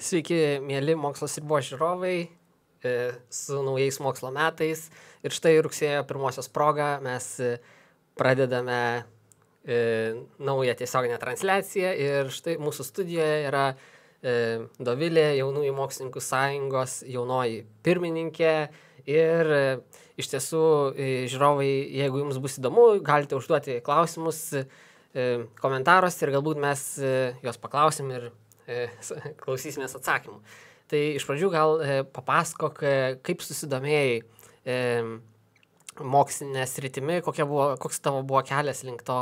Sveiki, mėly Mokslo sriubos žiūrovai, su naujais mokslo metais. Ir štai rugsėjo 1 proga mes pradedame naują tiesioginę transliaciją. Ir štai mūsų studijoje yra Dovilė, Jaunųjų mokslininkų sąjungos jaunoji pirmininkė. Ir iš tiesų, žiūrovai, jeigu jums bus įdomu, galite užduoti klausimus komentaruose ir galbūt mes juos paklausim ir klausysimės atsakymų. Tai iš pradžių gal papasakok, kaip susidomėjai mokslinė sritimi, koks tavo buvo kelias link to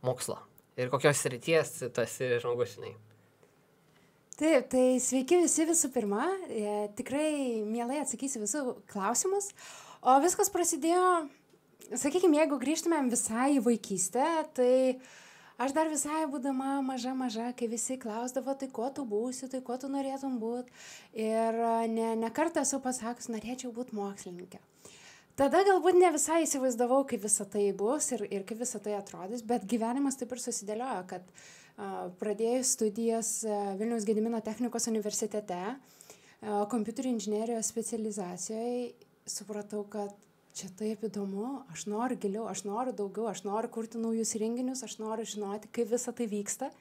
mokslo ir kokios srities tu esi žmogus, žinai. Taip, tai sveiki visi visų pirma, tikrai mielai atsakysiu visų klausimus, o viskas prasidėjo, sakykime, jeigu grįžtumėm visai į vaikystę, tai aš dar visai būdama maža, kai visi klausdavo, tai kuo tu būsi, tai kuo tu norėtum būti. Ir ne kartą esu pasakus, norėčiau būti mokslininkė. Tada galbūt ne visai įsivaizdavau, kaip visą tai bus ir kaip visą tai atrodys, bet gyvenimas taip ir susidėliojo, kad pradėjus studijas Vilniaus Gedimino technikos universitete, kompiuterių inžinerijos specializacijoje, supratau, kad čia taip įdomu, aš noriu giliau, aš noriu daugiau, aš noriu kurti naujus renginius, aš noriu žinoti, kaip visa tai vyksta.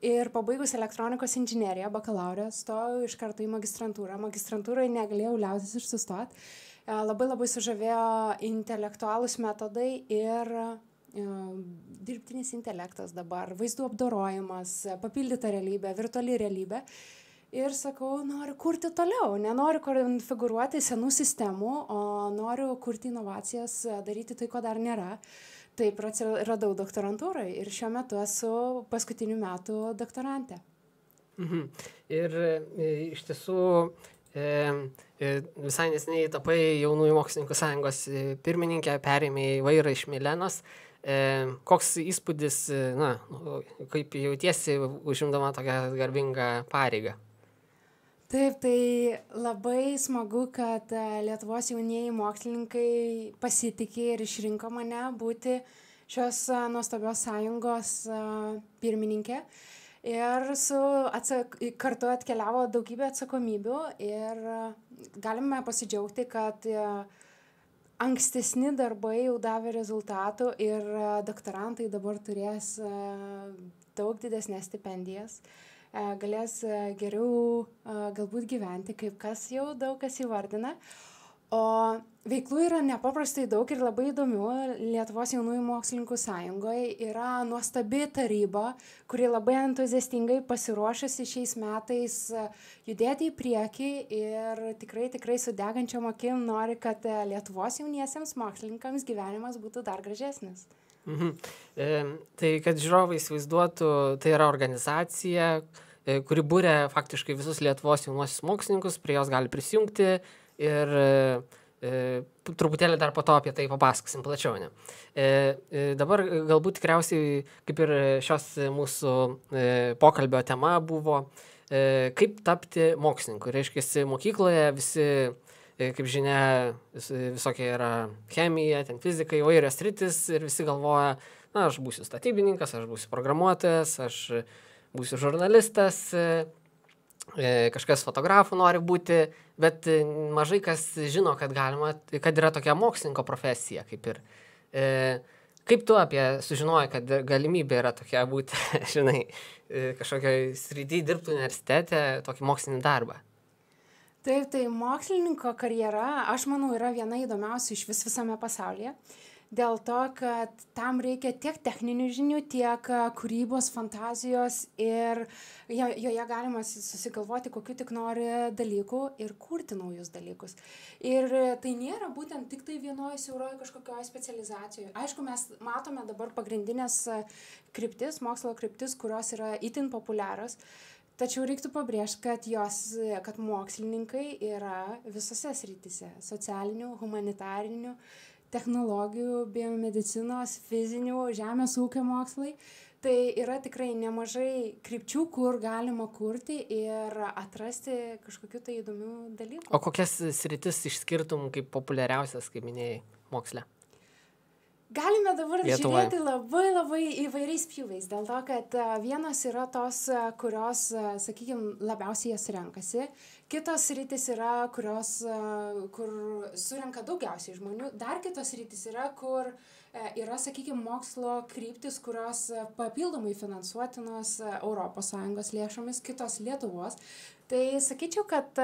Ir pabaigus elektronikos inžineriją, bakalaurę, stojau iš karto į magistrantūrą. Magistrantūroje negalėjau liautis ir sustoti. Labai sužavėjo intelektualūs metodai ir dirbtinis intelektas dabar, vaizdų apdorojimas, papildyta realybė, virtuali realybė. Ir sakau, noriu kurti toliau, nenoriu konfigūruoti senų sistemų, o noriu kurti inovacijas, daryti tai, ko dar nėra. Taip radau doktorantūrai ir šiuo metu esu paskutinių metų doktorantė. Ir iš tiesų visai neseniai tapai Jaunųjų mokslininkų sąjungos pirmininkė, perėmė vairą iš Milenos. Koks įspūdis, kaip jautiesi užimdama tokią garbingą pareigą? Taip, tai labai smagu, kad Lietuvos jaunieji mokslininkai pasitikė ir išrinko mane būti šios nuostabios sąjungos pirmininkė. Ir kartu atkeliavo daugybė atsakomybių ir galime pasidžiaugti, kad ankstesni darbai jau davė rezultatų ir doktorantai dabar turės daug didesnės stipendijas. Galės geriau galbūt gyventi, kaip kas jau daug kas įvardina. O veiklų yra nepaprastai daug ir labai įdomių. Lietuvos jaunųjų mokslininkų sąjungoje yra nuostabi taryba, kuri labai entuziastingai pasiruošusi šiais metais judėti į priekį ir tikrai su degančiom akim nori, kad Lietuvos jauniesiems mokslininkams gyvenimas būtų dar gražesnis. Tai kad žiūrovai įsivaizduotų, tai yra organizacija, kuri būrė faktiškai visus Lietuvos jaunuosius mokslininkus, prie jos gali prisijungti ir truputėlį dar po to apie tai papasakosim plačiau. Dabar galbūt tikriausiai, kaip ir šios mūsų pokalbio tema buvo, kaip tapti mokslininku. Reiškia, mokykloje visi, kaip žinia, visokie yra chemija, ten fizika, įvairios sritis ir visi galvoja, aš būsiu statybininkas, aš būsiu programuotojas, aš būsiu žurnalistas, kažkas fotografų nori būti, bet mažai kas žino, kad yra tokia mokslininko profesija, kaip ir. Kaip tu sužinojai, kad galimybė yra tokia būti, žinai, kažkokioj srity dirbti universitete, tokį mokslinį darbą? Taip, tai mokslininko karjera, aš manau, yra viena įdomiausių iš visame pasaulyje. Dėl to, kad tam reikia tiek techninių žinių, tiek kūrybos, fantazijos ir joje galima susigalvoti, kokiu tik nori dalykų ir kurti naujus dalykus. Ir tai nėra būtent tik tai vienoje siauroje kažkokioje specializacijoje. Aišku, mes matome dabar pagrindinės kryptis, mokslo kryptis, kurios yra itin populiarios. Tačiau reiktų pabrėžti, kad mokslininkai yra visose srityse – socialinių, humanitarinių, technologijų, biomedicinos, fizinių, žemės ūkio mokslai. Tai yra tikrai nemažai krypčių, kur galima kurti ir atrasti kažkokių tai įdomių dalykų. O kokias sritis išskirtum kaip populiariausias, kaip minėjai, moksle? Galime dabar Lietuvoj. žiūrėti labai įvairiais pjūviais, dėl to, kad vienos yra tos, kurios, sakykime, labiausiai jas renkasi, kitos rytis yra, kurios, kur surenka daugiausiai žmonių, dar kitos rytis yra, kur yra, sakykime, mokslo kryptis, kurios papildomai finansuotinos ES lėšomis, kitos Lietuvos. Tai sakyčiau, kad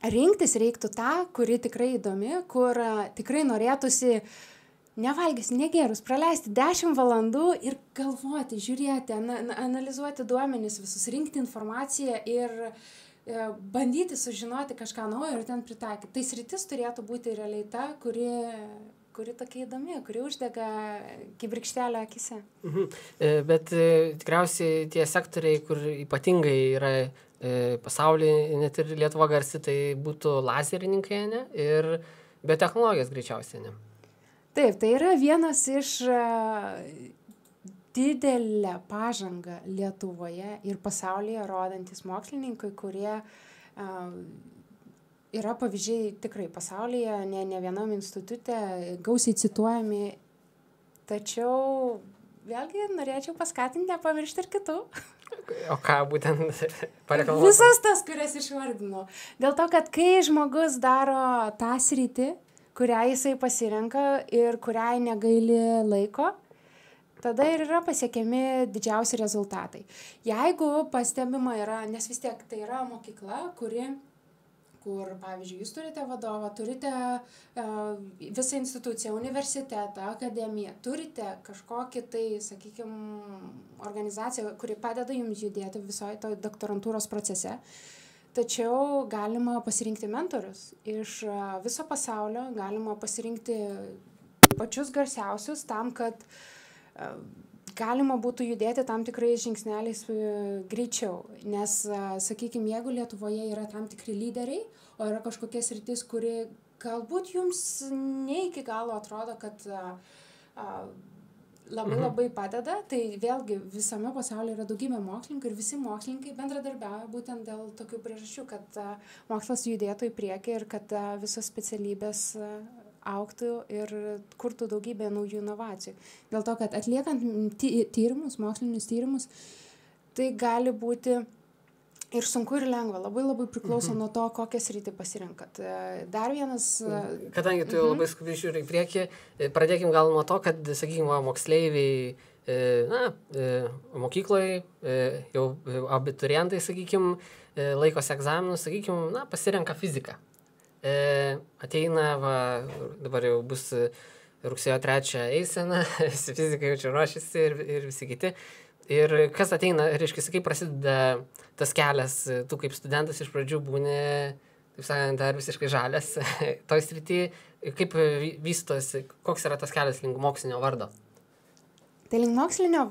rinktis reiktų tą, kuri tikrai įdomi, kur tikrai norėtųsi nevalgys, negėrus, praleisti 10 valandų ir galvoti, žiūrėti, analizuoti duomenis, visus rinkti informaciją ir bandyti sužinoti kažką naujo ir ten pritaikyti. Tai sritis turėtų būti realiai ta, kuri tokia įdomi, kuri uždega kibirkštelę akise. Bet tikriausiai tie sektoriai, kur ypatingai yra pasaulyje, net ir Lietuva garsi, tai būtų lazerininkai, ne? Ir biotechnologijos greičiausiai, ne? Taip, tai yra vienas iš didelę pažangą Lietuvoje ir pasaulyje rodantis mokslininkai, kurie yra pavyzdžiai tikrai pasaulyje, ne vienam institute, gausiai cituojami, tačiau vėlgi norėčiau paskatinti nepamiršti ir kitų. O ką būtent pareklamuoti? Visas tas, kurias išvardinau. Dėl to, kad kai žmogus daro tą sritį, kurią jisai pasirenka ir kuriai negaili laiko, tada ir yra pasiekiami didžiausi rezultatai. Jeigu pastebima yra, nes vis tiek tai yra mokykla, kur, pavyzdžiui, jūs turite vadovą, turite visą instituciją, universitetą, akademiją, turite kažkokį tai, sakykime, organizaciją, kuri padeda jums judėti visoje to doktorantūros procese. Tačiau galima pasirinkti mentorius iš viso pasaulio, galima pasirinkti pačius garsiausius tam, kad galima būtų judėti tam tikrais žingsneliais greičiau. Nes, sakykime, jeigu Lietuvoje yra tam tikri lyderiai, o yra kažkokia sritis, kuri galbūt jums ne iki galo atrodo, kad labai padeda, tai vėlgi visame pasaulyje yra daugybė mokslininkų ir visi mokslininkai bendradarbiauja būtent dėl tokių priežasčių, kad mokslas judėtų į priekį ir kad visos specialybės augtų ir kurtų daugybę naujų inovacijų. Dėl to, kad atliekant tyrimus, mokslinius tyrimus, tai gali būti ir sunku ir lengva, labai priklauso nuo to, kokią sritį pasirinkat. Dar vienas... Kadangi tu jau labai skubiai žiūri į priekį, pradėkim gal nuo to, kad, sakykime, moksleiviai, mokykloje, jau abiturientai, sakykime, laikosi egzaminus, sakykime, pasirenka fiziką. Ateina, dabar jau bus rugsėjo 3 eisena, visi fizikai jau čia ruošiasi ir visi kiti. Ir kas ateina, reiškia, kaip prasideda tas kelias, tu kaip studentas iš pradžių būni, taip sakant, dar visiškai žalias toj srity, kaip vystosi, koks yra tas kelias link mokslinio vardo? Tai link mokslinio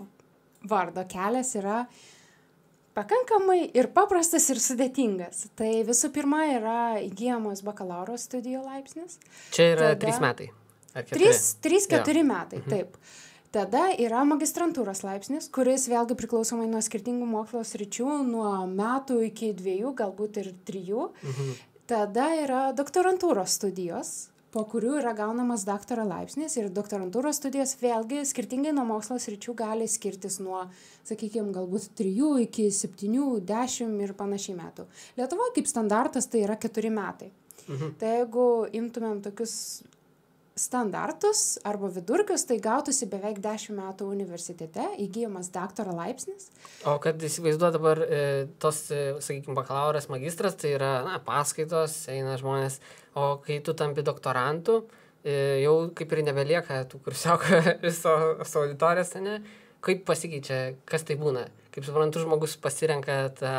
vardo kelias yra pakankamai ir paprastas ir sudėtingas. Tai visų pirma yra įgyjamos bakalauro studijų laipsnis. Čia yra 3 metai. 3-4 metai, taip. Tada yra magistrantūros laipsnis, kuris vėlgi priklausomai nuo skirtingų mokslo sričių, nuo metų iki 2, galbūt ir 3. Tada yra doktorantūros studijos, po kurių yra gaunamas daktaro laipsnis ir doktorantūros studijos vėlgi skirtingai nuo mokslo sričių gali skirtis nuo, sakykime, galbūt 3 iki 7, 10 ir panašiai metų. Lietuvoje kaip standartas tai yra 4 metai. Tai jeigu imtumėm tokius standartus arba vidurkius, tai gautųsi beveik 10 metų universitete, įgyjamas daktaro laipsnis. O kad įsivaizduoju dabar tos, sakykime, bakalauras, magistras, tai yra paskaitos, eina žmonės, o kai tu tampi doktorantu, jau kaip ir nebelieka tų kursiokų viso auditorijos, ne? Kaip pasikeičia, kas tai būna? Kaip suprantu, žmogus pasirenka tą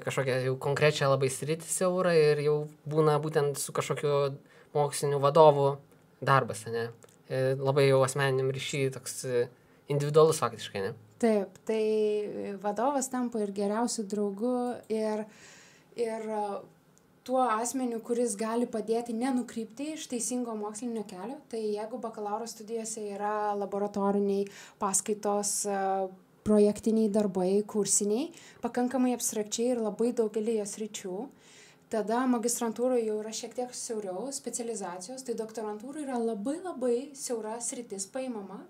kažkokią jau konkrečią labai sritį siaurą ir jau būna būtent su kažkokiu mokslinių vadovų darbas, ne? Labai jau asmeniniam ryšy toks individualus faktiškai, ne? Taip, tai vadovas tampa ir geriausiu draugu ir tuo asmeniu, kuris gali padėti nenukrypti iš teisingo mokslinio kelio. Tai jeigu bakalauro studijose yra laboratoriniai paskaitos, projektiniai darbai, kursiniai, pakankamai abstrakčiai ir labai daugelį jos ryčių, Tada magistrantūroje jau yra šiek tiek siauriau specializacijos, tai doktorantūra yra labai labai siaura sritis paimama,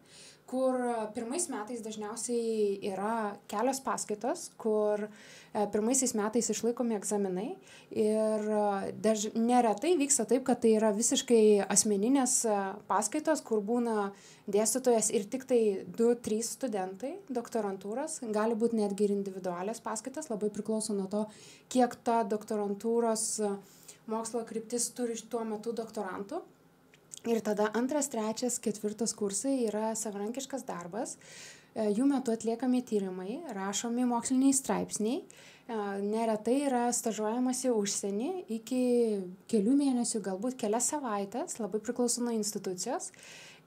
kur pirmais metais dažniausiai yra kelios paskaitos, kur pirmaisiais metais išlaikomi egzaminai ir neretai vyksta taip, kad tai yra visiškai asmeninės paskaitos, kur būna dėstytojas ir tik tai 2-3 studentai doktorantūros, gali būti netgi ir individualios paskaitos, labai priklauso nuo to, kiek ta doktorantūros mokslo kryptis turi tuo metu doktorantų. Ir tada 2., 3., 4. kursai yra savarankiškas darbas, jų metu atliekami tyrimai, rašomi moksliniai straipsniai, neretai yra stažuojamasi užsienį iki kelių mėnesių, galbūt kelias savaitės, labai priklauso nuo institucijos,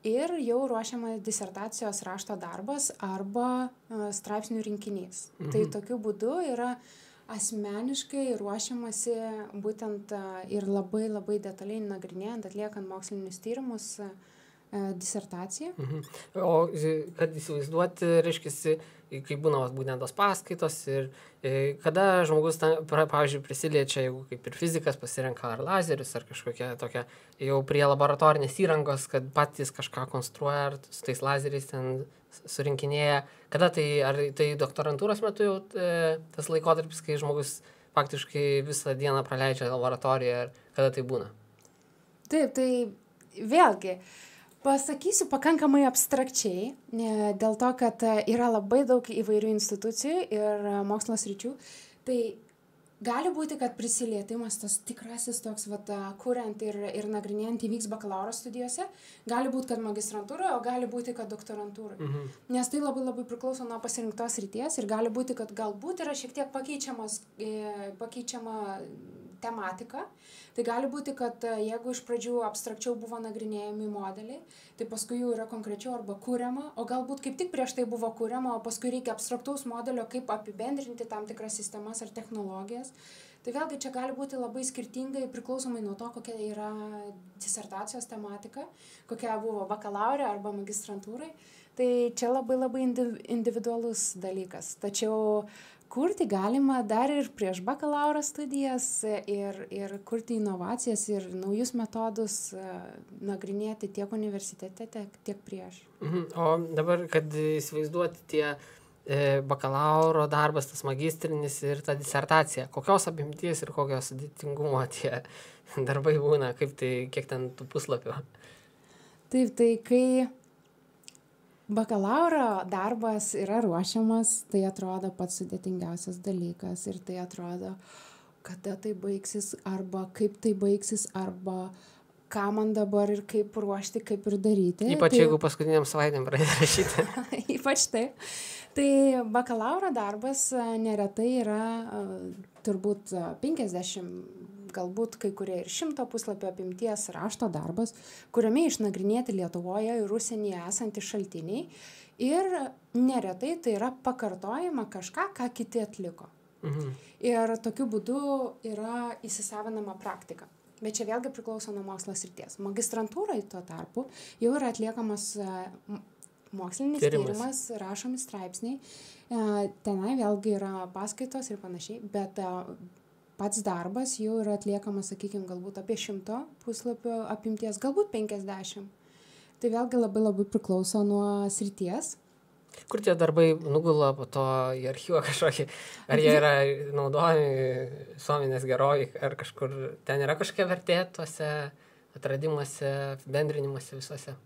ir jau ruošiama disertacijos rašto darbas arba straipsnių rinkinys. Tai tokiu būdu yra asmeniškai ruošiamasi būtent ir labai labai detaliai nagrinėjant, atliekant mokslinius tyrimus, disertaciją. O kad įsivaizduoti, reiškia, kai būna būtent tos paskaitos ir kada žmogus, pavyzdžiui, prisiliečia, jeigu kaip ir fizikas pasirenka ar lazerius, ar kažkokia tokia jau prie laboratorinės įrangos, kad patys kažką konstruoja, ar su tais lazeriais ten surinkinėja. Kada tai, ar tai doktorantūros metu jau tas laikotarpis, kai žmogus faktiškai visą dieną praleidžia laboratorijoje, ar kada tai būna? Taip, tai vėlgi, pasakysiu pakankamai abstrakčiai, dėl to, kad yra labai daug įvairių institucijų ir mokslo sričių. Tai gali būti, kad prisilietimas tas tikrasis toks, kuriant ir nagrinėjant įvyks bakalauro studijose, gali būti, kad magistrantūroje, o gali būti, kad doktorantūroje. Nes tai labai labai priklauso nuo pasirinktos ryties ir gali būti, kad galbūt yra šiek tiek pakeičiama tematika. Tai gali būti, kad jeigu iš pradžių abstrakčiau buvo nagrinėjami modeliai, tai paskui jau yra konkrečiau arba kuriama, o galbūt kaip tik prieš tai buvo kuriama, o paskui reikia abstraktaus modelio, kaip apibendrinti tam tikras sistemas ar technologijas. Tai vėlgi čia gali būti labai skirtingai priklausomai nuo to, kokia yra disertacijos tematika, kokia buvo bakalaurė arba magistrantūrai. Tai čia labai labai individualus dalykas. Tačiau kurti galima dar ir prieš bakalauro studijas ir kurti inovacijas ir naujus metodus nagrinėti tiek universitete, tiek prieš. O dabar, kad įsivaizduoti tie bakalauro darbas, tas magistrinis ir ta disertacija, kokios apimties ir kokios sudėtingumo tie darbai būna, kaip tai, kiek ten tų puslapių? Taip, tai kai bakalauro darbas yra ruošiamas, tai atrodo pats sudėtingiausias dalykas ir tai atrodo, kada tai baigsis, arba kaip tai baigsis, arba ką man dabar ir kaip ruošti, kaip ir daryti. Ypač jeigu paskutiniam savaitėm pradėti rašyti. Ypač taip. Tai bakalauro darbas neretai yra turbūt 50, galbūt kai kurie ir 100 puslapio apimties rašto darbas, kuriame išnagrinėti Lietuvoje ir užsienyje esantys šaltiniai ir neretai tai yra pakartojama kažką, ką kiti atliko. Ir tokiu būdu yra įsisavinama praktika. Bet čia vėlgi priklauso nuo mokslo srities. Magistrantūrai tuo tarpu jau yra atliekamas mokslinis tyrimas, rašomi straipsniai. Tenai vėlgi yra paskaitos ir panašiai, bet pats darbas jau yra atliekamas, sakykime, galbūt apie 100 puslapio apimties, galbūt 50. Tai vėlgi labai labai priklauso nuo srities. Kur tie darbai nugula po to į archyvą kažkokį? Ar jie yra naudojami visuomenės gerovai, ar kažkur ten yra kažkokia vertė tuose atradimuose, bendrinimuose visuose?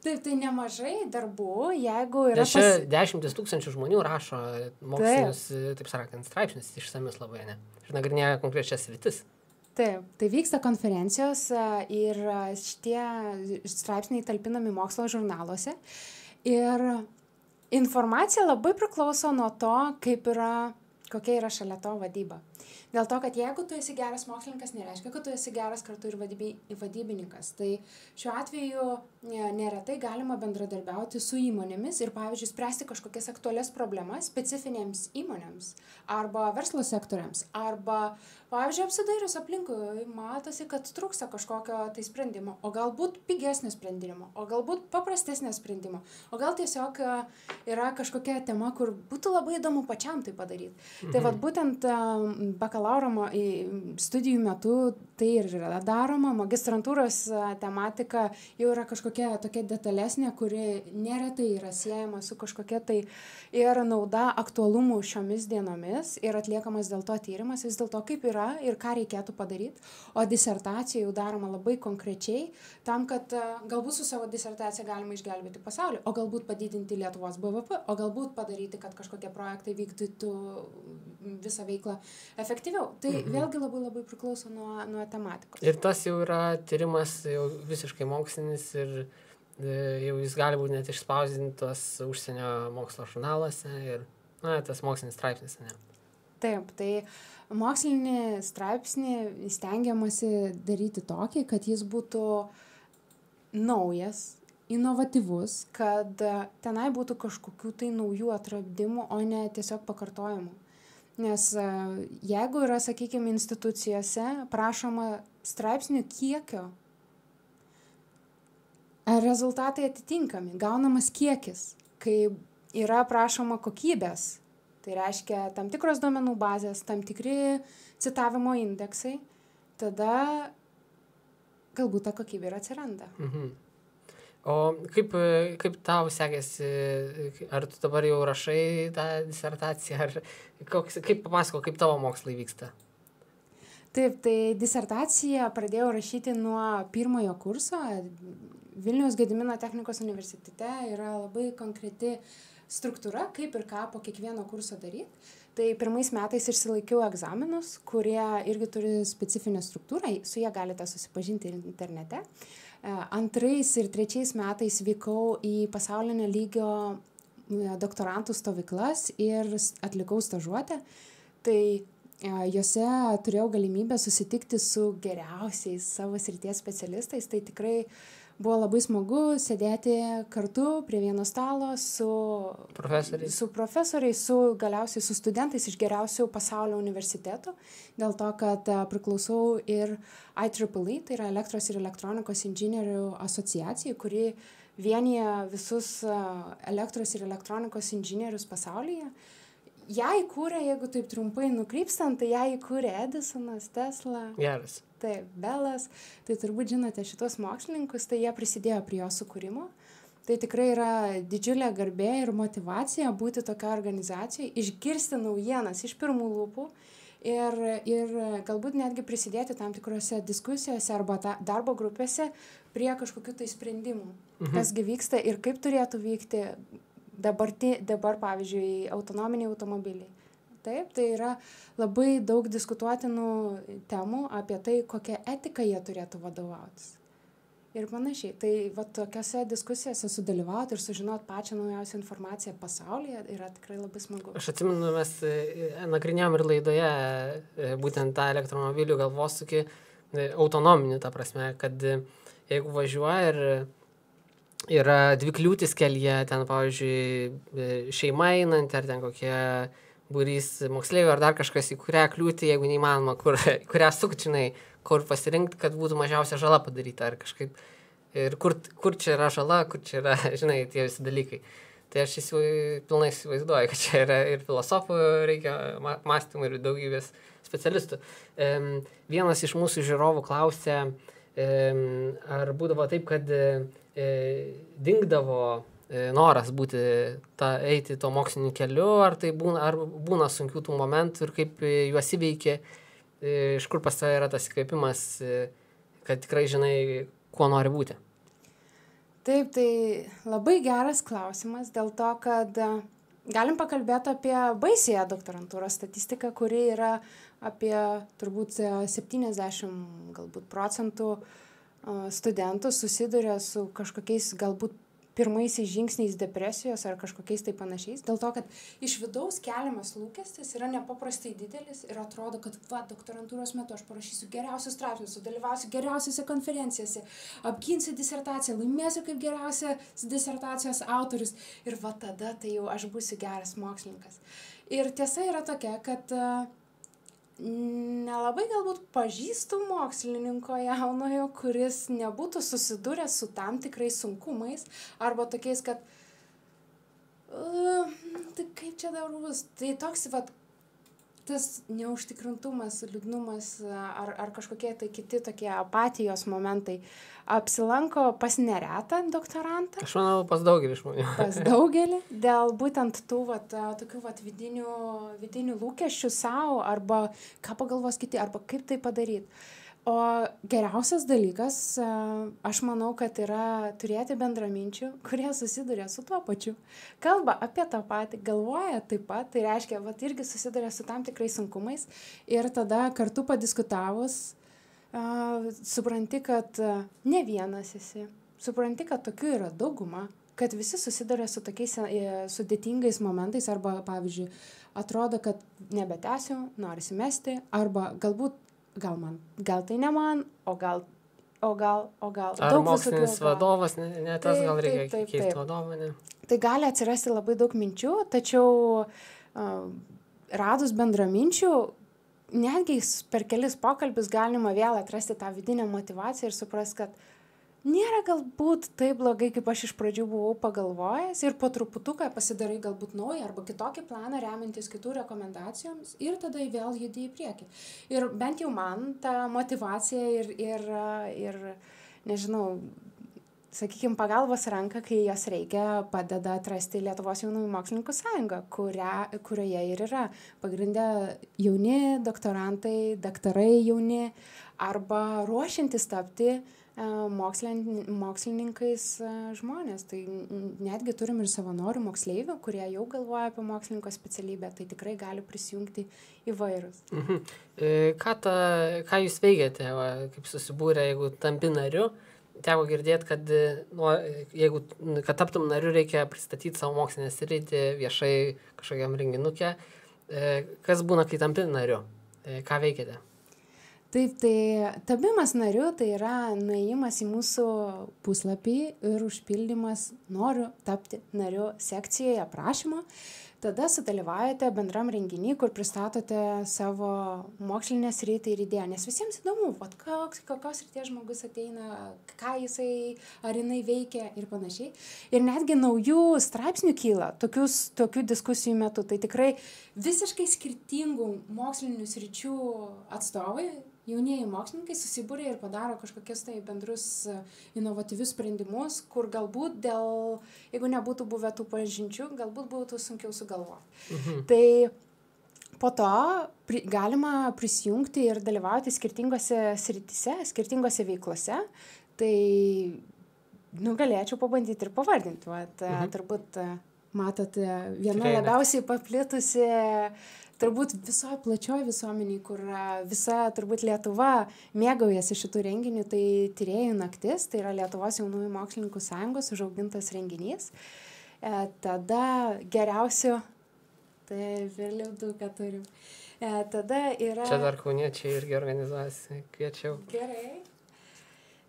Taip, tai nemažai darbų, jeigu yra... Nes čia 10 000 žmonių rašo mokslinius, taip sakant, straipsnius išsamius labai, ne? Ir nagrinėja konkrečias sritis. Taip, tai vyksta konferencijos ir šitie straipsniai talpinami mokslo žurnaluose. Ir informacija labai priklauso nuo to, kokia yra šalia to vadyba. Dėl to, kad jeigu tu esi geras mokslininkas, nereiškia, kad tu esi geras kartu ir vadybininkas. Tai šiuo atveju neretai galima bendradarbiauti su įmonėmis ir, pavyzdžiui, spręsti kažkokias aktualias problemas specifinėms įmonėms arba verslo sektoriams. Arba, pavyzdžiui, apsidairius aplinkui, matosi, kad trūksta kažkokio tai sprendimo, o galbūt pigesnio sprendimo, o galbūt paprastesnio sprendimo, o gal tiesiog yra kažkokia tema, kur būtų labai įdomu pačiam tai padaryti. Tai vat būtent bakalauro bakalauro studijų metu tai ir yra daroma. Magistrantūros tematika jau yra kažkokia tokia detalesnė, kuri neretai yra siejama su kažkokia tai ir nauda aktualumu šiomis dienomis ir atliekamas dėl to tyrimas, vis dėl to kaip yra ir ką reikėtų padaryti. O disertacija jau daroma labai konkrečiai tam, kad galbūt su savo disertacija galima išgelbėti pasaulį, o galbūt padidinti Lietuvos BVP, o galbūt padaryti, kad kažkokie projektai vykdytų visą veiklą efektyviau. Tai vėlgi labai labai priklauso nuo tematikos. Ir tas jau yra tyrimas jau visiškai mokslinis ir jau jis gali būti net išspausdintos užsienio mokslo žurnaluose ir tas mokslinis straipsnis. Ne? Taip, tai mokslinį straipsnį stengiamasi daryti tokį, kad jis būtų naujas, inovatyvus, kad tenai būtų kažkokių tai naujų atradimų, o ne tiesiog pakartojimų. Nes jeigu yra, sakykime, institucijose prašoma straipsnių kiekio, rezultatai atitinkami, gaunamas kiekis, kai yra prašoma kokybės, tai reiškia tam tikros duomenų bazės, tam tikri citavimo indeksai, tada galbūt ta kokybė ir atsiranda. O kaip tau sekėsi, ar tu dabar jau rašai tą disertaciją, ar kaip papasako, kaip tavo mokslai vyksta? Taip, tai disertaciją pradėjau rašyti nuo pirmojo kurso. Vilniaus Gedimino technikos universitete yra labai konkreti struktūra, kaip ir ką po kiekvieno kurso daryti. Tai pirmais metais išsilaikiau egzaminus, kurie irgi turi specifinę struktūrą, su jie galite susipažinti internete. Antrais ir trečiais metais vykau į pasaulinio lygio doktorantų stovyklas ir atlikau stažuotę. Tai jose turėjau galimybę susitikti su geriausiais savo srities specialistais. Tai tikrai buvo labai smagu sėdėti kartu prie vieno stalo su profesoriais, galiausiai su studentais iš geriausių pasaulio universitetų, dėl to, kad priklausau ir IEEE, tai yra elektros ir elektronikos inžinierių asociacijai, kuri vienyje visus elektros ir elektronikos inžinierius pasaulyje. Ją įkūrė, jeigu taip trumpai nukrypstant, tai ją įkūrė Edisonas, Tesla. Geras. Taip, Belas. Tai turbūt žinote šitos mokslininkus, tai jie prisidėjo prie jo sukūrimo. Tai tikrai yra didžiulė garbė ir motyvacija būti tokia organizacija, išgirsti naujienas iš pirmų lūpų ir galbūt netgi prisidėti tam tikrose diskusijose arba darbo grupėse prie kažkokių tai sprendimų, kasgi vyksta ir kaip turėtų vykti dabar, pavyzdžiui, autonominiai automobiliai. Taip, tai yra labai daug diskutuotinų temų apie tai, kokią etiką jie turėtų vadovautis. Ir panašiai. Tai tokiose diskusijose sudalyvauti ir sužinoti pačią naujausią informaciją pasaulyje yra tikrai labai smagu. Aš atsimenu, mes nagrinėjom ir laidoje būtent tą elektromobilių galvosūkį autonominį, ta prasme, kad jeigu važiuoja ir yra dvi kliūtis kelyje, ten, pavyzdžiui, šeima einant, ar ten kokie būrys moksleivių, ar dar kažkas, į kurią kliūtį, jeigu neįmanoma, kurią sukčinai, kur pasirinkti, kad būtų mažiausia žala padaryta, ar kažkaip, ir kur čia yra žala, kur čia yra, žinai, tie visi dalykai. Tai aš pilnai įsivaizduoju, kad čia yra ir filosofų reikia mąstymų, ir daugybės specialistų. Vienas iš mūsų žiūrovų klausė, ar būdavo taip, kad dingdavo noras eiti to moksliniu keliu, ar tai būna sunkių tų momentų ir kaip juos įveikia, iš kur pas tave yra tas įkvėpimas, kad tikrai žinai, kuo nori būti. Taip, tai labai geras klausimas dėl to, kad galim pakalbėti apie baisiąją doktorantūros statistiką, kuri yra apie turbūt 70 galbūt procentų studentų susiduria su kažkokiais galbūt pirmaisiais žingsniais depresijos ar kažkokiais tai panašiais, dėl to, kad iš vidaus keliamas lūkestis yra nepaprastai didelis ir atrodo, kad doktorantūros metu aš parašysiu geriausius straipsnius, sudalyvausiu geriausiose konferencijose, apginsiu disertaciją, laimėsiu kaip geriausias disertacijos autorius ir tada tai jau aš būsiu geras mokslininkas. Ir tiesa yra tokia, kad nelabai galbūt pažįstu mokslininko jaunojo, kuris nebūtų susidūręs su tam tikrais sunkumais arba tokiais, kad tai kaip čia dar bus. Tai toks tas neužtikrintumas, liūdnumas ar kažkokie tai kiti tokie apatijos momentai apsilanko pas neretą doktorantą. Aš manau, pas daugelį žmonių. Pas daugelį, dėl būtent tų tokių vidinių lūkesčių savo, arba ką pagalvos kiti, arba kaip tai padaryti. O geriausias dalykas, aš manau, kad yra turėti bendraminčių, kurie susiduria su tuo pačiu. Kalba apie tą patį, galvoja taip pat, tai reiškia, irgi susiduria su tam tikrais sunkumais ir tada kartu padiskutavus, supranti, kad ne vienas esi, supranti, kad tokių yra dauguma, kad visi susiduria su tokiais sudėtingais momentais, arba, pavyzdžiui, atrodo, kad nebetęsiu, norisi mesti, arba galbūt gal tai ne man, o gal. Ar mokslinis vadovas, ne tas, gal reikia keisti vadovą, ne? Tai gali atsirasti labai daug minčių, tačiau radus bendraminčių, netgi per kelis pokalbius galima vėl atrasti tą vidinę motyvaciją ir suprast, kad nėra galbūt taip blogai, kaip aš iš pradžių buvau pagalvojęs, ir po truputuką pasidarai galbūt naują arba kitokį planą remiantis kitų rekomendacijoms ir tada vėl judi į priekį. Ir bent jau man ta motyvacija ir nežinau, sakykime, pagalbos ranka, kai jos reikia, padeda atrasti Lietuvos jaunųjų mokslininkų sąjungą, kurioje ir yra pagrindė jauni doktorantai, daktarai jauni arba ruošiantis tapti mokslininkais žmonės. Tai netgi turim ir savanorių moksleivių, kurie jau galvoja apie mokslininko specialybę, tai tikrai gali prisijungti įvairūs. Ką jūs veikiate, kaip susibūrė, jeigu tampi nariu? Teko girdėti, kad taptum nariu, reikia pristatyti savo mokslinę sritį viešai kažkokiam renginuke. Kas būna, kai tampi nariu? Ką veikiate? Taip, tai tapimas nariu tai yra nuėjimas į mūsų puslapį ir užpildymas noriu tapti nariu sekcijoje aprašymo. Tada sudalyvaujate bendram renginį, kur pristatote savo mokslinę sritį ir idėją. Nes visiems įdomu, kokios srities žmogus ateina, ką jisai ar jinai veikia ir panašiai. Ir netgi naujų straipsnių kyla tokių diskusijų metu. Tai tikrai visiškai skirtingų mokslinių sričių atstovai, jaunieji mokslininkai susibūrė ir padaro kažkokius tai bendrus inovatyvius sprendimus, kur galbūt jeigu nebūtų buvę tų pažinčių, galbūt būtų sunkiau sugalvoti. Tai po to galima prisijungti ir dalyvauti skirtingose srityse, skirtingose veiklose. Tai galėčiau pabandyti ir pavardinti. Turbūt matote, viena labiausiai paplitusi turbūt visoje plačioje visuomeniai, kur visa turbūt Lietuva mėgaujasi šitų renginių, tai Tyrėjų naktis, tai yra Lietuvos jaunųjų mokslininkų sąjungos užaugintas renginys. Tada geriausiu, tai vėliau daug ką turim. Tada yra... Čia dar kauniečiai irgi organizuojasi, kviečiau. Gerai.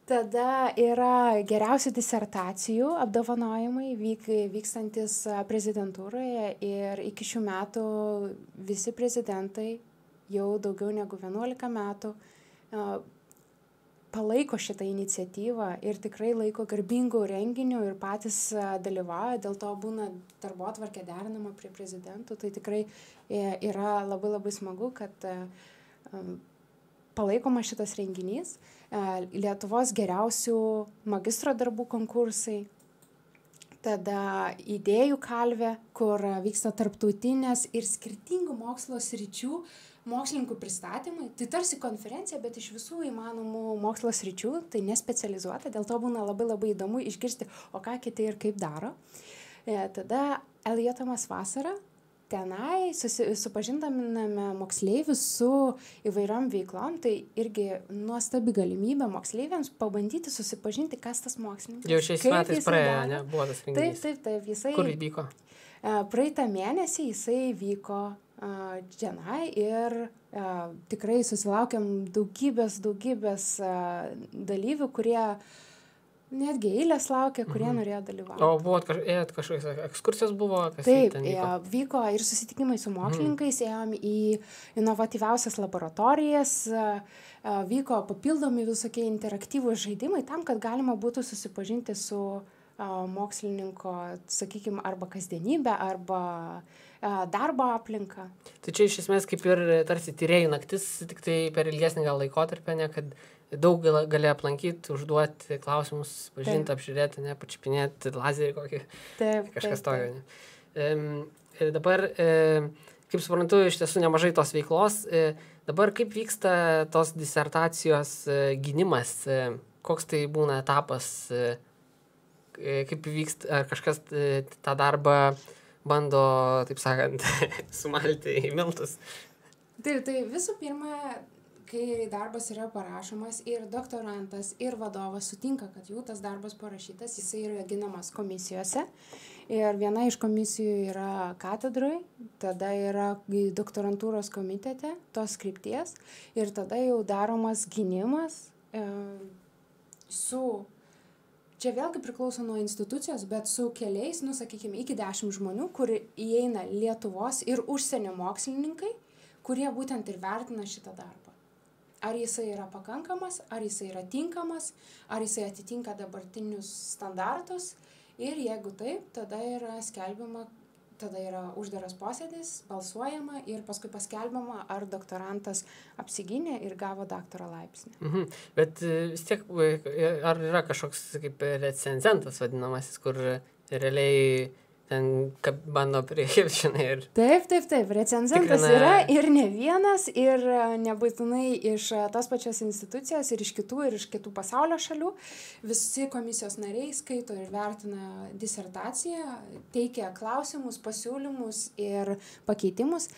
Tada yra geriausių disertacijų apdovanojimai vykstantis prezidentūroje ir iki šių metų visi prezidentai jau daugiau negu 11 metų palaiko šitą iniciatyvą ir tikrai laiko garbingų renginių ir patys dalyvauja, dėl to būna darbotvarkė derinama prie prezidentų. Tai tikrai yra labai labai smagu, kad palaikoma šitas renginys. Lietuvos geriausių magistro darbų konkursai, tada idėjų kalvė, kur vyksta tarptautinės ir skirtingų mokslo sričių mokslininkų pristatymai. Tai tarsi konferencija, bet iš visų įmanomų mokslo sričių, tai nespecializuota, dėl to būna labai labai įdomu išgirsti, o ką kiti ir kaip daro. Tada Eljotamas vasara. Tenai supažindiname moksleivius su įvairiom veiklom, tai irgi nuostabi galimybė moksleiviams pabandyti susipažinti, kas tas mokslininkas. Jau šiais metais praėjo, ne? Buvo tas renginys. Taip. Kur įvyko? Praeitą mėnesį jisai vyko čionai ir tikrai susilaukėm daugybės dalyvių, kurie netgi eilės laukia, kurie norėjo dalyvauti. O buvo kažkokios ekskursijos buvo? Taip, vyko ir susitikimai su mokslininkais, ėjom į inovatyviausias laboratorijas, vyko papildomi visokie interaktyvūs žaidimai tam, kad galima būtų susipažinti su mokslininko, sakykime, arba kasdienybę, arba darbo aplinką. Tai čia iš esmės kaip ir tarsi tyrėjų naktis, tik tai per ilgesnį gal laikotarpį, ne, kad daug gali aplankyti, užduoti klausimus, pažinti, apžiūrėti, ne, pačiupinėti lazerį kokį, kažkas tokio. Ir dabar, kaip suprantu, iš tiesų nemažai tos veiklos. Dabar kaip vyksta tos disertacijos gynimas, koks tai būna etapas, kaip vyksta, ar kažkas tą darbą bando, taip sakant, sumalti į miltus. Tai visų pirma, kai darbas yra parašomas ir doktorantas, ir vadovas sutinka, kad jų tas darbas parašytas, jisai yra ginamas komisijose. Ir viena iš komisijų yra katedroj, tada yra doktorantūros komitete tos krypties ir tada jau daromas gynimas su, čia vėlgi priklauso nuo institucijos, bet su keliais, sakykime, iki 10 žmonių, kur įeina Lietuvos ir užsienio mokslininkai, kurie būtent ir vertina šitą darbą. Ar jisai yra pakankamas, ar jisai yra tinkamas, ar jisai atitinka dabartinius standartus. Ir jeigu taip, tada yra skelbiama, tada yra uždaras posėdis, balsuojama ir paskui paskelbiama, ar doktorantas apsigynė ir gavo daktaro laipsnį. Bet vis tiek, ar yra kažkoks kaip recenzentas vadinamasis, kur realiai ten bando priešinai ir... Taip, recenzentas yra ir ne vienas, ir nebūtinai iš tos pačios institucijos, ir iš kitų pasaulio šalių. Visi komisijos nariai skaito ir vertina disertaciją, teikia klausimus, pasiūlymus ir pakeitimus.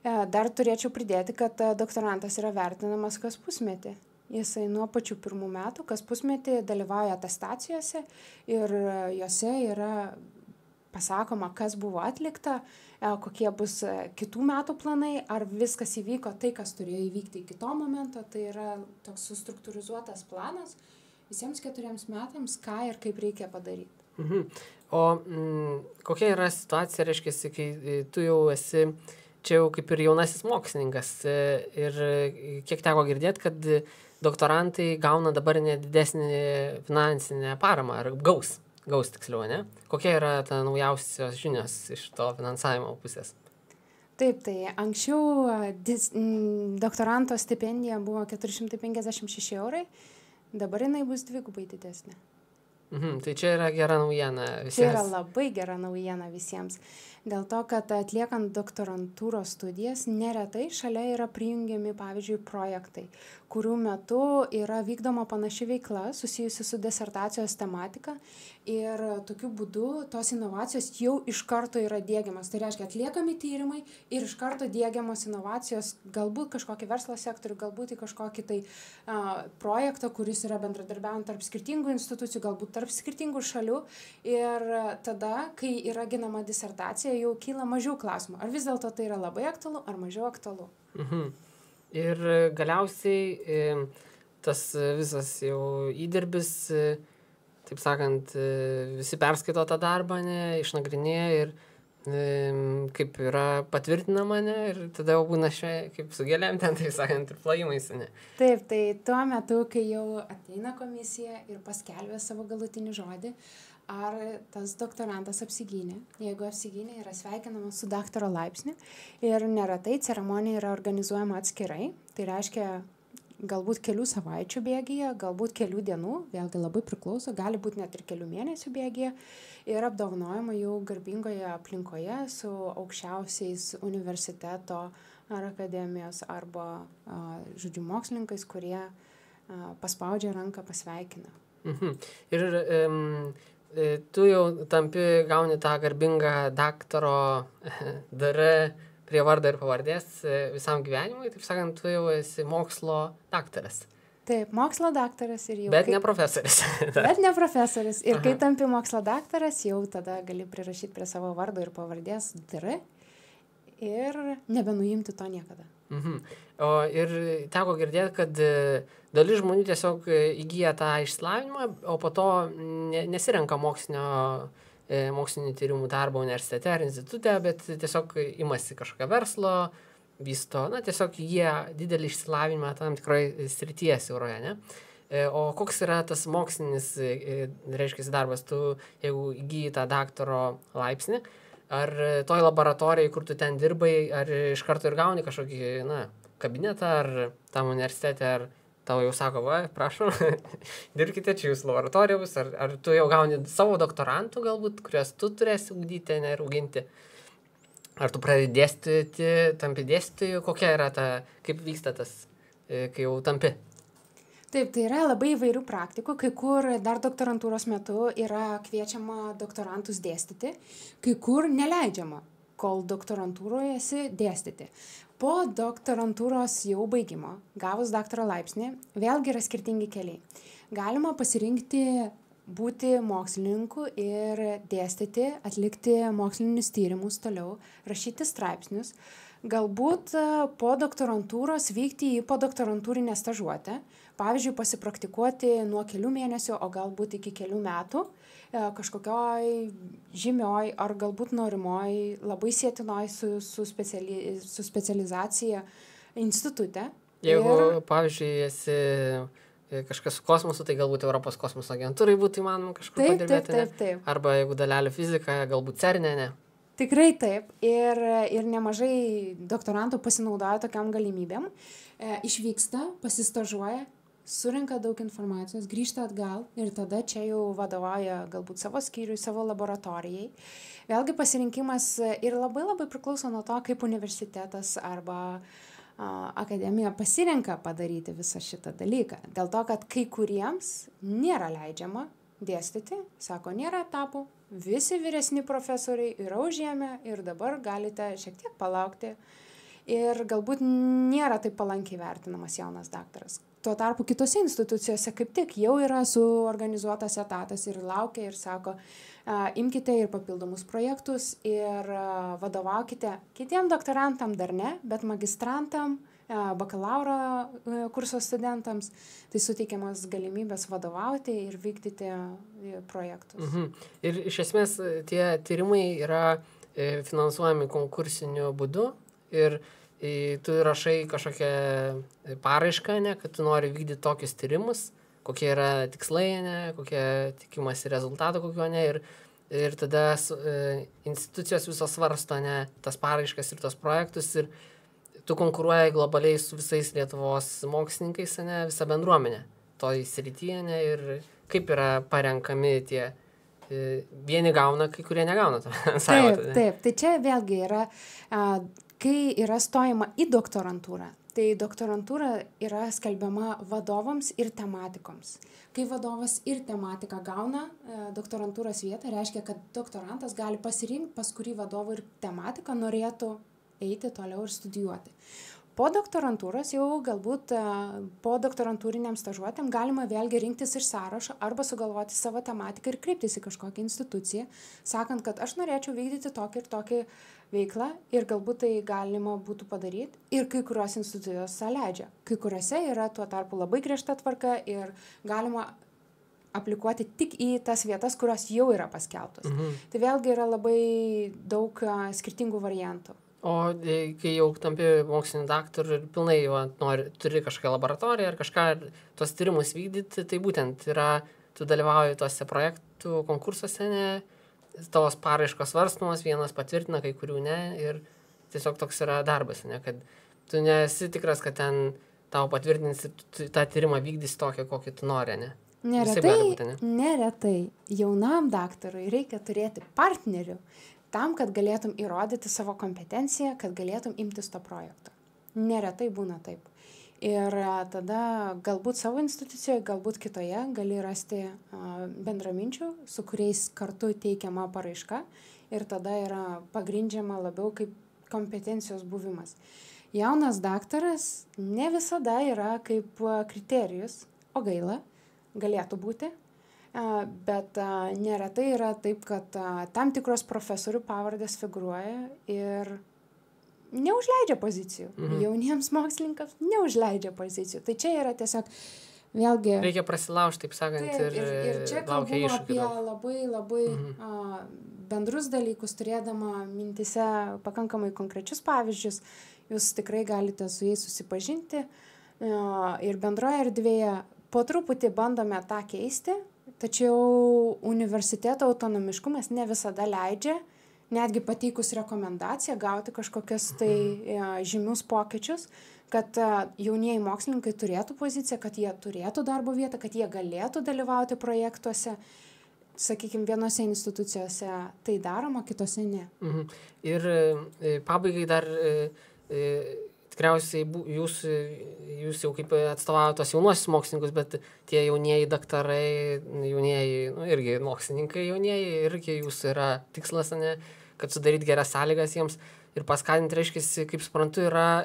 Dar turėčiau pridėti, kad doktorantas yra vertinamas kas pusmetį. Jisai nuo pačių pirmų metų, kas pusmetį dalyvauja atestacijose ir jose yra pasakoma, kas buvo atlikta, kokie bus kitų metų planai, ar viskas įvyko tai, kas turėjo įvykti iki to momento. Tai yra toks sustruktūrizuotas planas visiems 4 metams, ką ir kaip reikia padaryti. O kokia yra situacija, reiškia, kai tu jau esi čia jau kaip ir jaunasis mokslininkas ir kiek teko girdėti, kad doktorantai gauna dabar nedidesnį finansinę paramą, ar gaus tiksliau, ne? Kokia yra ta naujausios žinios iš to finansavimo pusės? Taip, tai anksčiau doktoranto stipendija buvo 456 €, dabar jinai bus 2x didesnė. Tai čia yra gera naujiena visiems. Tai yra labai gera naujiena visiems. Dėl to, kad atliekant doktorantūros studijas, neretai šalia yra prijungiami, pavyzdžiui, projektai, kurių metu yra vykdoma panaši veikla susijusi su disertacijos tematika ir tokiu būdu tos inovacijos jau iš karto yra diegiamas. Tai reiškia, atliekami tyrimai ir iš karto diegiamos inovacijos galbūt kažkokį verslo sektorių, galbūt į kažkokį tai projektą, kuris yra bendradarbiaujant tarp skirtingų institucijų, galbūt tarp skirtingų šalių. Ir tada, kai yra ginama disertacija, jau kyla mažiau klausimų. Ar vis dėlto tai yra labai aktualu, ar mažiau aktualu? Ir galiausiai tas visas jau įdirbis, taip sakant, visi perskaito tą darbą, išnagrinėja ir kaip yra patvirtinama, ir tada jau būna kaip su gėlėm ten, taip sakant, ir plojimais, Taip, tai tuo metu, kai jau ateina komisija ir paskelbia savo galutinį žodį, ar tas doktorantas apsigynė. Jeigu apsigynė, yra sveikinamas su daktaro laipsniu ir neretai ceremonija yra organizuojama atskirai. Tai reiškia galbūt kelių savaičių bėgyje, galbūt kelių dienų, vėlgi labai priklauso, gali būti net ir kelių mėnesių bėgyje ir apdovanojama jau garbingoje aplinkoje su aukščiausiais universiteto ar akademijos arba, žodžiu, mokslininkais, kurie paspaudžia ranką, pasveikina. Ir tu jau gauni tą garbingą daktaro prie vardo ir pavardės visam gyvenimui, taip sakant, tu jau esi mokslo daktaras. Taip, mokslo daktaras ir jau... Bet ne profesorius. Bet ne profesorius. Ir kai tampi mokslo daktaras, jau tada gali prirašyti prie savo vardo ir pavardės DR ir nebenuimti to niekada. Ir teko girdėti, kad dalis žmonių tiesiog įgyja tą išsilavinimą, o po to nesirenka mokslinių tyrimų darbo universitete ar institute, bet tiesiog imasi kažkokio verslo, vysto, tiesiog jie didelį išsilavinimą tam tikroje srityje siauroje, ne? O koks yra tas mokslinis, reiškia, darbas, tu, jeigu įgyji tą daktaro laipsnį, ar toj laboratorijai, kur tu ten dirbai, ar iš karto ir gauni kažkokį, kabinetą, ar tam universitete, ar tau jau sako, va, prašom, dirbkite čia jūsų laboratorijos, ar tu jau gauni savo doktorantų galbūt, kuriuos tu turėsi ugdyti, ne, ir auginti. Ar tu pradedi dėstyti, tampi dėstytoju, kokia yra ta, kaip vyksta tas, kai jau tampi? Taip, tai yra labai įvairių praktikų, kai kur dar doktorantūros metu yra kviečiama doktorantus dėstyti, kai kur neleidžiama, kol doktorantūroje esi dėstyti. Po doktorantūros jau baigimo, gavus daktaro laipsnį, vėlgi yra skirtingi keliai. Galima pasirinkti būti mokslininku ir dėstyti, atlikti mokslinius tyrimus toliau, rašyti straipsnius, galbūt po doktorantūros vykti į podoktorantūrinę stažuotę, pavyzdžiui, pasipraktikuoti nuo kelių mėnesių, o galbūt iki kelių metų kažkokioj žymioj ar galbūt norimoj, labai sietinoj su specializacija institute. Jeigu, pavyzdžiui, esi kažkas su kosmosu, tai galbūt Europos kosmoso agentūrai būtų įmanoma kažkur padirbėti. Taip. Arba jeigu dalelių fizika, galbūt CERNE, ne? Tikrai taip. Ir nemažai doktorantų pasinaudoja tokiam galimybėm. Išvyksta, pasistažuoja, surenka daug informacijos, grįžta atgal ir tada čia jau vadovauja galbūt savo skyriui, savo laboratorijai. Vėlgi pasirinkimas ir labai priklauso nuo to, kaip universitetas arba akademija pasirenka padaryti visą šitą dalyką. Dėl to, kad kai kuriems nėra leidžiama dėstyti, sako, nėra etapų, visi vyresni profesoriai yra užėmę ir dabar galite šiek tiek palaukti ir galbūt nėra taip palankiai vertinamas jaunas daktaras. Tuo tarpu kitose institucijose kaip tik jau yra suorganizuotas etatas ir laukia ir sako, imkite ir papildomus projektus ir vadovaukite kitiem doktorantam dar ne, bet magistrantam, bakalauro kurso studentams, tai suteikiamas galimybės vadovauti ir vykdyti projektus. Ir iš esmės tie tyrimai yra finansuojami konkursiniu būdu ir tu rašai kažkokią paraišką, ne, kad tu nori vykdyti tokius tyrimus, kokie yra tikslai, ne, kokie tikimasi rezultato, kokio ne, ir tada institucijos visos svarsto, ne, tas paraiškas ir tos projektus ir tu konkuruoji globaliai su visais Lietuvos mokslininkais, ne, visa bendruomenė toj srityje, ne, ir kaip yra parenkami tie, vieni gauna, kai kurie negauna. Taip, tai čia vėlgi yra, kai yra stojama į doktorantūrą, tai doktorantūra yra skelbiama vadovams ir tematikoms. Kai vadovas ir tematika gauna doktorantūros vietą, reiškia, kad doktorantas gali pasirinkti, pas kurį vadovą ir tematiką norėtų eiti toliau ir studijuoti. Po doktorantūros jau galbūt po doktorantūriniam stažuotėm galima vėlgi rinktis iš sąrašo arba sugalvoti savo tematiką ir kreiptis į kažkokią instituciją, sakant, kad aš norėčiau vykdyti tokį ir tokį veiklą ir galbūt tai galima būtų padaryti ir kai kurios institucijos leidžia. Kai kuriuose yra tuo tarpu labai griežta tvarka ir galima aplikuoti tik į tas vietas, kurios jau yra paskelbtos. Tai vėlgi yra labai daug skirtingų variantų. O kai jau tampi mokslinį daktarų ir pilnai jau turi kažkokią laboratoriją ar kažką, tuos tyrimus vykdyti, tai būtent yra, tu dalyvauji tuose projektų konkursuose, ne, tavos paraiškos svarstomos, vienas patvirtina, kai kurių ne, ir tiesiog toks yra darbas, ne, kad tu nesi tikras, kad ten tau patvirtins ir tą tyrimą vykdys tokį, kokį tu nori, ne? Neretai jaunam daktarui reikia turėti partnerių, tam, kad galėtum įrodyti savo kompetenciją, kad galėtum imtis to projekto. Neretai būna taip. Ir tada galbūt savo institucijoje, galbūt kitoje gali rasti bendraminčių, su kuriais kartu teikiama paraiška ir tada yra pagrindžiama labiau kaip kompetencijos buvimas. Jaunas daktaras ne visada yra kaip kriterijus, o gaila, galėtų būti. Bet neretai yra taip, kad tam tikros profesorių pavardės figūruoja ir neužleidžia pozicijų. Jauniems mokslininkams neužleidžia pozicijų. Tai čia yra tiesiog vėlgi... Reikia prasilaužti, taip sakant, ir čia kalbu apie labai bendrus dalykus, turėdama mintise pakankamai konkrečius pavyzdžius. Jūs tikrai galite su jais susipažinti ir bendroje erdvėje po truputį bandome tą keisti, tačiau universiteto autonomiškumas ne visada leidžia, netgi pateikus rekomendaciją, gauti kažkokias tai žymius pokyčius, kad jaunieji mokslininkai turėtų poziciją, kad jie turėtų darbo vietą, kad jie galėtų dalyvauti projektuose. Sakykime, vienose institucijose tai daroma, kitose ne. Ir pabaigai dar tikriausiai jūs jau kaip atstovavote tos jaunuosius mokslininkus, bet tie jaunieji daktarai, jaunieji, irgi mokslininkai jaunieji, irgi jūsų yra tikslas, ne, kad sudaryti geras sąlygas jiems ir paskatinti, reiškia, kaip suprantu, yra,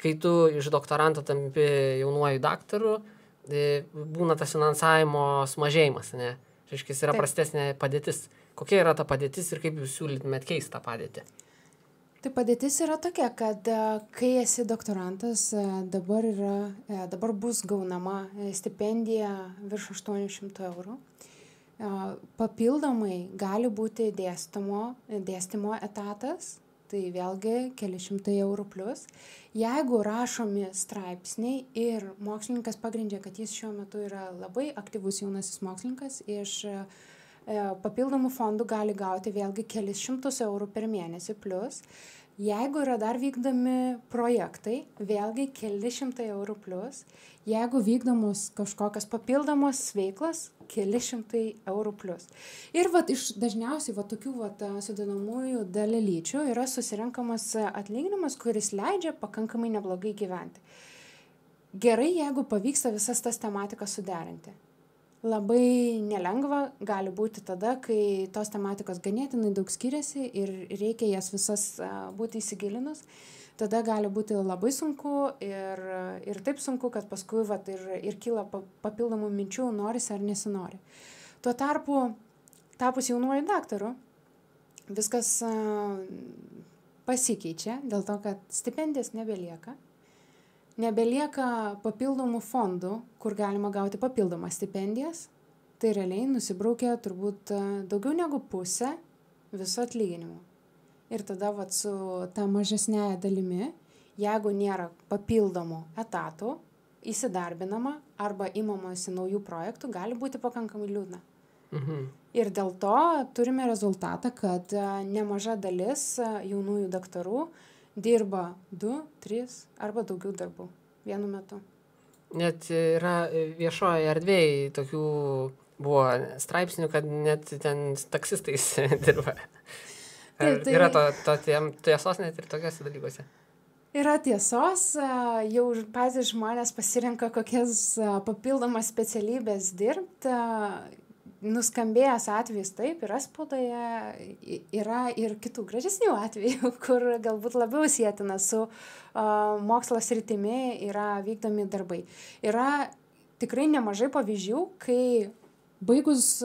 kai tu iš doktoranto tampi jaunuoju daktaru, būna tas finansavimo sumažėjimas, ne? Reiškia, yra prastesnė padėtis. Kokia yra ta padėtis ir kaip jūs siūlytumėt keisti tą padėtį? Tai padėtis yra tokia, kad kai esi doktorantas, dabar bus gaunama stipendija virš 800 eurų. Papildomai gali būti dėstymo etatas, tai vėlgi keli šimtai eurų plus. Jeigu rašomi straipsniai ir mokslininkas pagrindžia, kad jis šiuo metu yra labai aktyvus jaunasis mokslininkas, iš papildomų fondų gali gauti vėlgi kelis šimtus eurų per mėnesį plus. Jeigu yra dar vykdomi projektai, vėlgi keli šimtai eurų plus. Jeigu vykdomos kažkokios papildomos veiklos, keli šimtai eurų plus. Ir dažniausiai tokių sudedamųjų dalelyčių yra susirenkamas atlyginimas, kuris leidžia pakankamai neblogai gyventi. Gerai, jeigu pavyksta visas tas tematikas suderinti. Labai nelengva gali būti tada, kai tos tematikos ganėtinai daug skiriasi ir reikia jas visas būti įsigilinus. Tada gali būti labai sunku ir taip sunku, kad paskui ir kyla papildomų minčių, norisi ar nesinori. Tuo tarpu, tapus jaunuoju daktaru, viskas pasikeičia dėl to, kad stipendijas nebelieka. Nebelieka papildomų fondų, kur galima gauti papildomas stipendijas. Tai realiai nusibraukia turbūt daugiau negu pusę viso atlyginimo. Ir tada su ta mažesnėje dalimi, jeigu nėra papildomų etatų, įsidarbinama arba imamasi naujų projektų, gali būti pakankamai liūdna. Ir dėl to turime rezultatą, kad nemaža dalis jaunųjų daktarų dirba 2, 3 arba daugiau darbų vienu metu. Net yra viešoje erdvėje tokių buvo straipsnių, kad net ten taksistais dirba. Yra to tiesos net ir tokiuose dalykuose? Yra tiesos, jau patys žmonės pasirenka kokias papildomas specialybės dirbti. Nuskambėjęs atvejis taip, yra spaudoje, yra ir kitų gražesnių atvejų, kur galbūt labiau sietina su mokslo sritimi yra vykdomi darbai. Yra tikrai nemažai pavyzdžių, kai baigus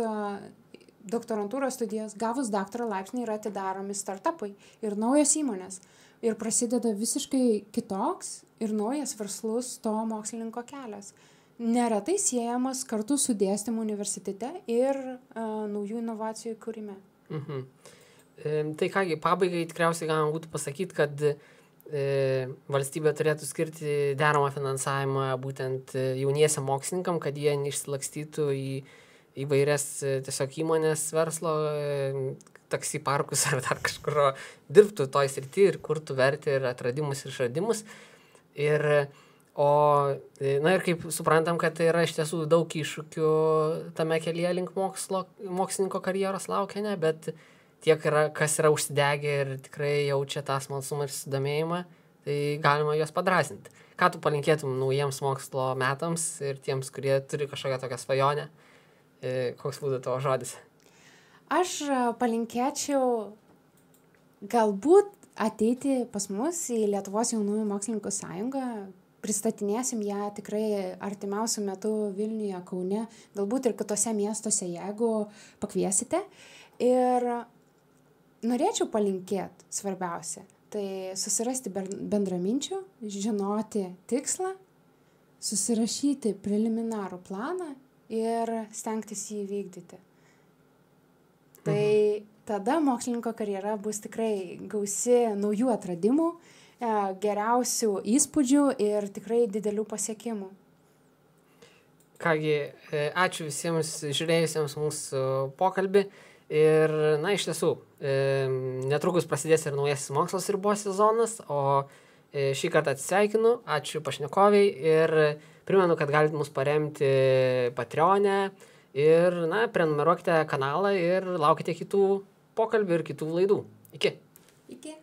doktorantūros studijas, gavus daktaro laipsnį yra atidaromi startupai ir naujos įmonės. Ir prasideda visiškai kitoks ir naujas verslus to mokslininko kelias. Neretai siejamas kartu su dėstymu universitete ir naujų inovacijų kūrime. Tai kągi, pabaigai tikriausiai galima būtų pasakyti, kad valstybė turėtų skirti deramą finansavimą būtent jauniesiam mokslininkam, kad jie neišsilakstytų į įvairias tiesiog įmonės verslo, taksi parkus ar dar kažkur dirbtų toj srity ir kurtų vertę ir atradimus ir išradimus. Ir kaip suprantam, kad tai yra iš tiesų daug iššūkių tame kelyje link mokslininko karjeros laukia, ne, bet tiek yra, kas yra užsidegę ir tikrai jaučia tą smalsumą ir susidomėjimą, tai galima juos padrąsinti. Ką tu palinkėtum naujiems mokslo metams ir tiems, kurie turi kažkokią tokią svajonę? Koks būtų tavo žodis? Aš palinkėčiau galbūt ateiti pas mus į Lietuvos jaunųjų mokslininkų sąjungą. Pristatinėsim ją tikrai artimiausiu metu Vilniuje, Kaune, galbūt ir kitose miestuose, jeigu pakviesite. Ir norėčiau palinkėti svarbiausia, tai susirasti bendraminčių, žinoti tikslą, susirašyti preliminarų planą ir stengtis jį vykdyti. Tai tada mokslininko karjera bus tikrai gausi naujų atradimų, geriausių įspūdžių ir tikrai didelių pasiekimų. Kągi, ačiū visiems žiūrėjusiems mūsų pokalbį. Ir, na, iš tiesų, netrukus prasidės ir naujasis mokslos ribos sezonas, o šį kartą atsisveikinu, ačiū pašnekoviai ir primenu, kad galite mus paremti Patreon'e ir, na, prenumeruokite kanalą ir laukite kitų pokalbių ir kitų laidų. Iki. Iki.